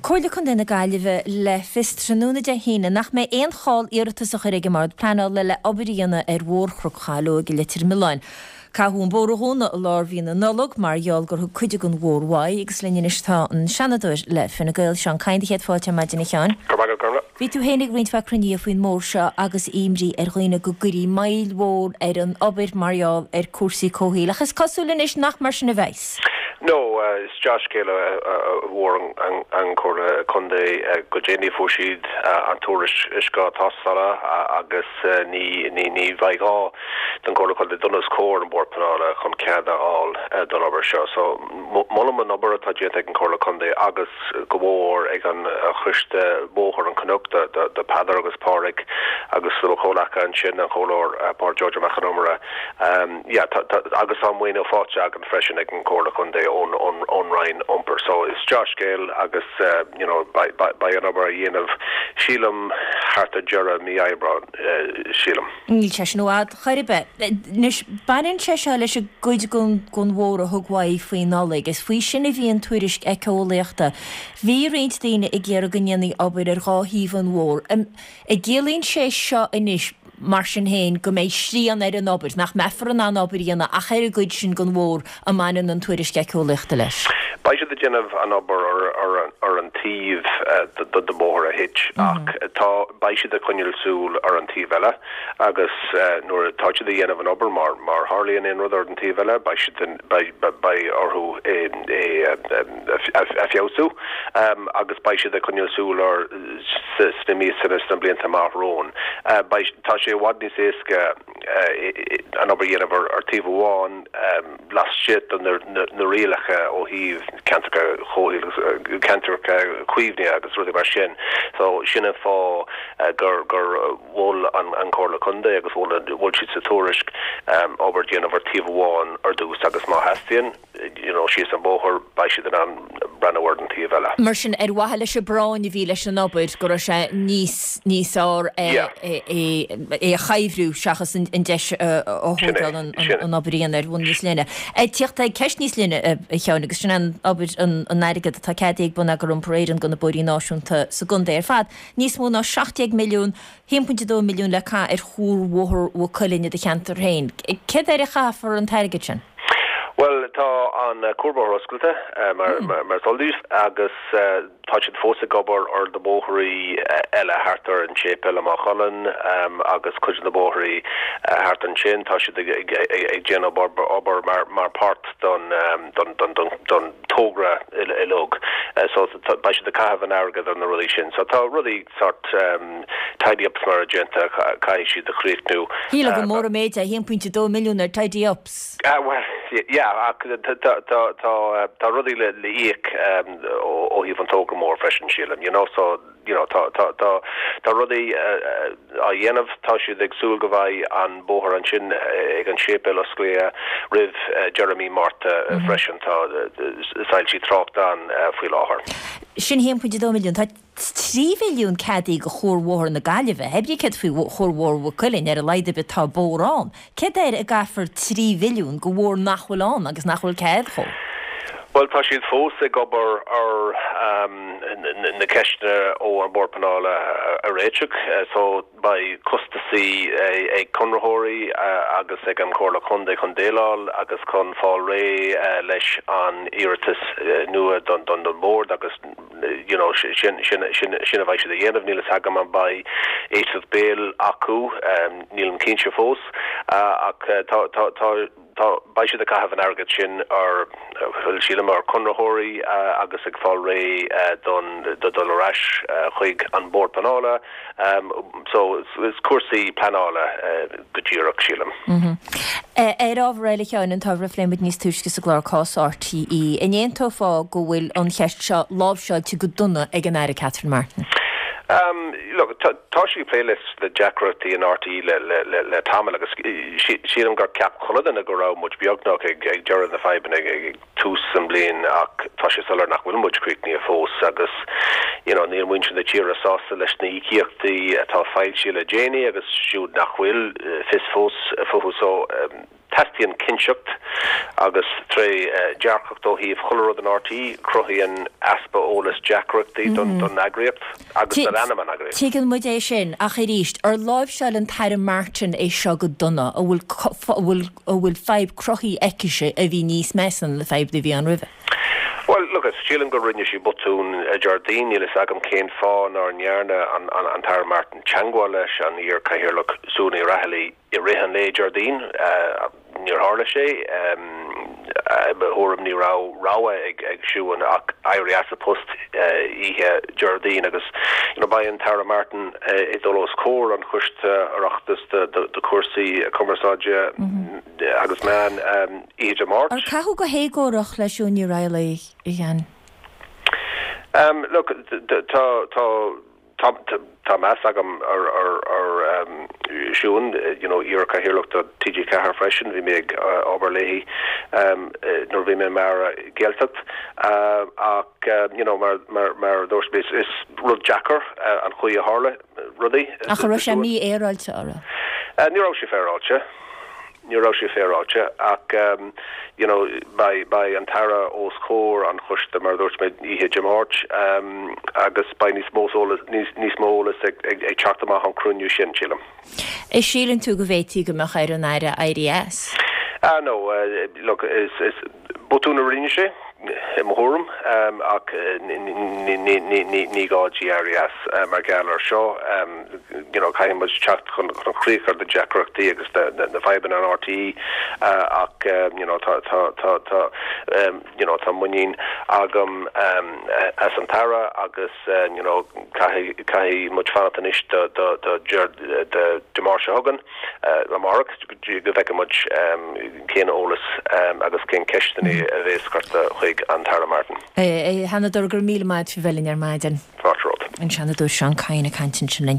Comhairle Contae na Gaillimhe le fios tráthnóna Dé hAoine nach mbeidh aon chall iarratas á chur ag an mBord Pleanála le obair a dhéanamh ar Bhóthar Chnoc Chaileoig i Leitir Mealláin. Caitheadh an bóthar a dhúnadh i lár mhí na Nollag mar gheall gur thug cuid den bhóthar uaidh agus linn anois tá an Seanadóir le Fine Gael, Seán Kyne. Céad fáilte ar maidin a Sheáin. Go raibh maith agat, Gormfhlaith. Bhí tú féin ag roinnt mhaith cruinnithe faoin mbóthar seo agus imní ar dhaoine go gcuirfí moill mhór ar an obair mar gheall ar cúrsaí comhshaoil ach is cosúil anois nach mar sin a bheas. No, is dea-scéal a fuair an Chomhairle Contae go déanaí. Fuair siad an tuairisc uisce tástála agus ní bheidh gá don Chomhairle Contae dul os comhair an Bhord Pleanála chun cead a fháil don obair seo. So, molaim an obair atá déanta ag an Chomhairle Contae agus go mór ag an Choiste Bóthar an Chnoic, do Peadar agus Pádraig agus do mo chomhleacaithe ansin, an Comhairleoir Pádraig George Mac Con Iomaire. Yeah, tá, tá, agus tá maoiniú faighte againn freisin ag an Chomhairle Contae ón, ón, ón Roinn Iompair. So is dea-scéal agus you know beidh, beidh, beidh an obair á dhéanamh, sílim, thart ar deireadh mí Aibreáin, sílim. Níl sé sin i bhfad chor ar bith. Anois, baineann sé seo leis an gcuid den bhóthar a thug uaidh faoi Nollaig. Is faoi sin a bhí an tuairisc éiceolaíochta. Bhí roinnt daoine ag iarraidh go ndéanfaí obair ar dhá thaobh an bhóthair. An gciallaíonn sé seo anois, mar sin féin, go mbeidh srian ar an obair, nach mbeifear in ann obair a dhéanamh ach ar an gcuid sin den bhóthar a mbaineann an tuairisc éiceolaíochta leis? Beidh siad ag déanamh an obair ar an taobh den bhóthar a thit ach tá, beidh siad ag coinneáil súil ar an taobh eile agus nuair atá siad ag dhéanamh an obair, má má tharlaíonn aon rud ar an taobh eile, beidh siad in, beidh, beidh orthu é a feabhsú agus beidh siad ag coinneáil súil air sna míosanna, sna blianta amach romhainn. Beidh, tá sé i bhfad níos éasca an obair a dhéanamh ar taobh amháin, laistigh de na rialacha ó thaobh ceantracha comhshaoil, ceantracha caomhnaithe agus rudaí mar sin. So sin an fáth gur gur mhol an Chomhairle Contae agus mhol mhol siad sa tuairisc obair a dhéanamh ar taobh amháin ar dtús agus má theastaíonn you know síos an bóthar beidh siad in ann breathnú ar an taobh eile. Mar sin, ar mhaithe leis an bpráinn a bhí leis an obair, go raibh sé níos níos fearr é é a chuibhriú seachas an deis a thógáil an obair a dhéanamh ar bhonn níos leithne. Ag tíocht ag ceist níos leithne, a Sheáin, agus sin an obair an airgead atá ceadaithe ag Bonneagar Iompair Éireann do na bóithrí náisiúnta sa gcontae ar fad, níos mó ná 17 milliún, 1.2 milliún le caitheamh ar Chuarbhóthar Mhaigh Cuilinn i do cheantar féin. Céard air a chaithfear an t-airgead sin? Bhuel, tá an cuarbhóthar oscailte, mar is eol daoibh, agus tá siad fós ag obair ar na bóithrí eile thart ar an séipéal i Maigh Cuilinn agus cuid de na bóithrí thart ansin. Tá siad ag déanamh obair mar páirt don togra uilig. So beidh siad ag caitheamh an airgead ar na rudaí sin. So tá rudaí sort tidy ups mar a déanta, caithfidh siad a chríochnú. Shílfeá gur mór an méid é 1.2 milliún ar tidy ups. Bhuel, yeah, ach tá rudaí le íoc ó thaobh an togra mór freisin, sílim, you know, so, you know, tá, tá, tá, tá rudaí á dhéanamh, tá siad ag súil go mbeidh an bóthar ansin ag an séipéal osclaithe roimh deireadh mí Márta freisin, tá soilsí tráchta ann faoi láthair. Sin 1.2 milliún. Tá 3 mhilliún ceadaithe do Chuarbhóthar na Gaillimhe. Hé brí céard faoi Chuarbhóthar Mhaigh Cuilinn, ar a laghad ar bith tá bóthar ann. Céard air a gcaithfear 3 mhilliún do bhóthar nach bhfuil ann agus nach bhfuil cead dhó? Bhuel, tá siad fós ag obair ar na ceisteanna ó an Bord Pleanála a réiteach so beidh costasaí ag conraitheoirí agus ag an Chomhairle Contae chun déileáil agus chun fáil réidh leis an iarratas nua don Bhord agus you know, sin, sin, sin, sin a bheidh siad a dhéanamh. Níl fhios agam an mbeidh éisteacht béil acu, nílim cinnte fós, ach tá, tá, tá, tá, beidh siad ag caitheamh an airgid sin ar, bhuel, sílim, ar conraitheoirí agus ag fáil réidh don, do dul ar ais chuig an Bord Pleanála. So, is cúrsaí pleanála go díreach, sílim. Ar ábhar eile, a Sheáin, an t-ábhar a phléigh muid níos túisce sa gclár, cás RTÉ, an aontófá go bhfuil an cheist seo láimhseáilte go dona ag an Aire Catherine Martin? Look, tá sí ag plé leis na deacrachtaí in RTÉ le tamall agus sílim gur cheap chuile dhuine go raibh muid beagnach ag deireadh na fadhbanna ag tús an bhliain ach tá sé soiléir nach bhfuil muid críochnaithe fós agus you know níl muintir na tíre sásta leis na híocaíochtaí atá foilsithe le déanaí agus siúd nach bhfuil fios fós fúthu so. Teastaíonn cinnteacht agus trédhearcacht ó thaobh chuile rud in RTÉ. Cruthaíonn easpa eolais deacrachtaí don eagraíocht agus don ainm an eagraíocht. Tuigeann muid é sin, ach arís, ar láimhseáil an tAire Martin é seo go dona? An bhfuil an bhfuil fadhb cruthaithe aicise a bhí níos measa ná na fadhbanna a bhí ann roimhe? Bhuel, look, sílim gur rinne sí botún Déardaoin. Níl fhios agam cén fáth nár ndearna an tAire Martin teagmháil leis an iar-Chathaoirleach Siún Ní Raghallaigh i rith an lae Déardaoin. Níor tharla sé. I mo thuairim ní raibh rogha ag Siún ach éirí as a post oíche Déardaoin agus you know beidh an tAire Martin ag dul os comhair an Choiste Oireachtais do chúrsaí cumarsáide agus meán oíche Dé Máirt. Ar caitheadh go héagórach le Siún Ní Raghallaigh, a Sheáin? Look, tá, tá. Tá tá meas agam ar ar ar Siún, you know, iar-Chathaoirleach do TG4 freisin, bhí mé ag obair léi nuair a bhí mé mar Aire Gaeltacht ach you know mar mar mar a dúirt mé is rud deacair an chaoi a tharla rudaí. Ach an raibh sé mífhéaráilte, an raibh? Ní raibh sé féaráilte. Ní raibh sé féaráilte ach you know beidh beidh an tAire os comhair an choiste mar a dúirt mé oíche Dé Máirt agus beidh níos mó eolas níos níos mó eolas ag ag ag teacht amach ón cruinniú sin, sílim. An síleann tú go bhféadfaí go mbeadh ar an Aire éirí as? Ah no, look is is botún a rinne sé i mo thuairim ach ní gá di éirí as mar gheall ar seo. You know caithfidh muid teacht chun críoch ar na deacrachtaí agus na fadhbanna in RTÉ ach you know tá tá tá tá you know tá muinín agam as an tAire agus you know caithfidh caithfidh muid fanacht anois do do do Dé Máirt seo chugainn amárach go bhfeicfidh muid cén eolas agus cén ceisteanna a bhéas curtha chuig an tAire Martin. A Sheanadóir, go raibh míle maith agat faoi bheith linn ar maidin. Fáilte romhat. An Seanadóir Seán Kyne ag caint ansin linn.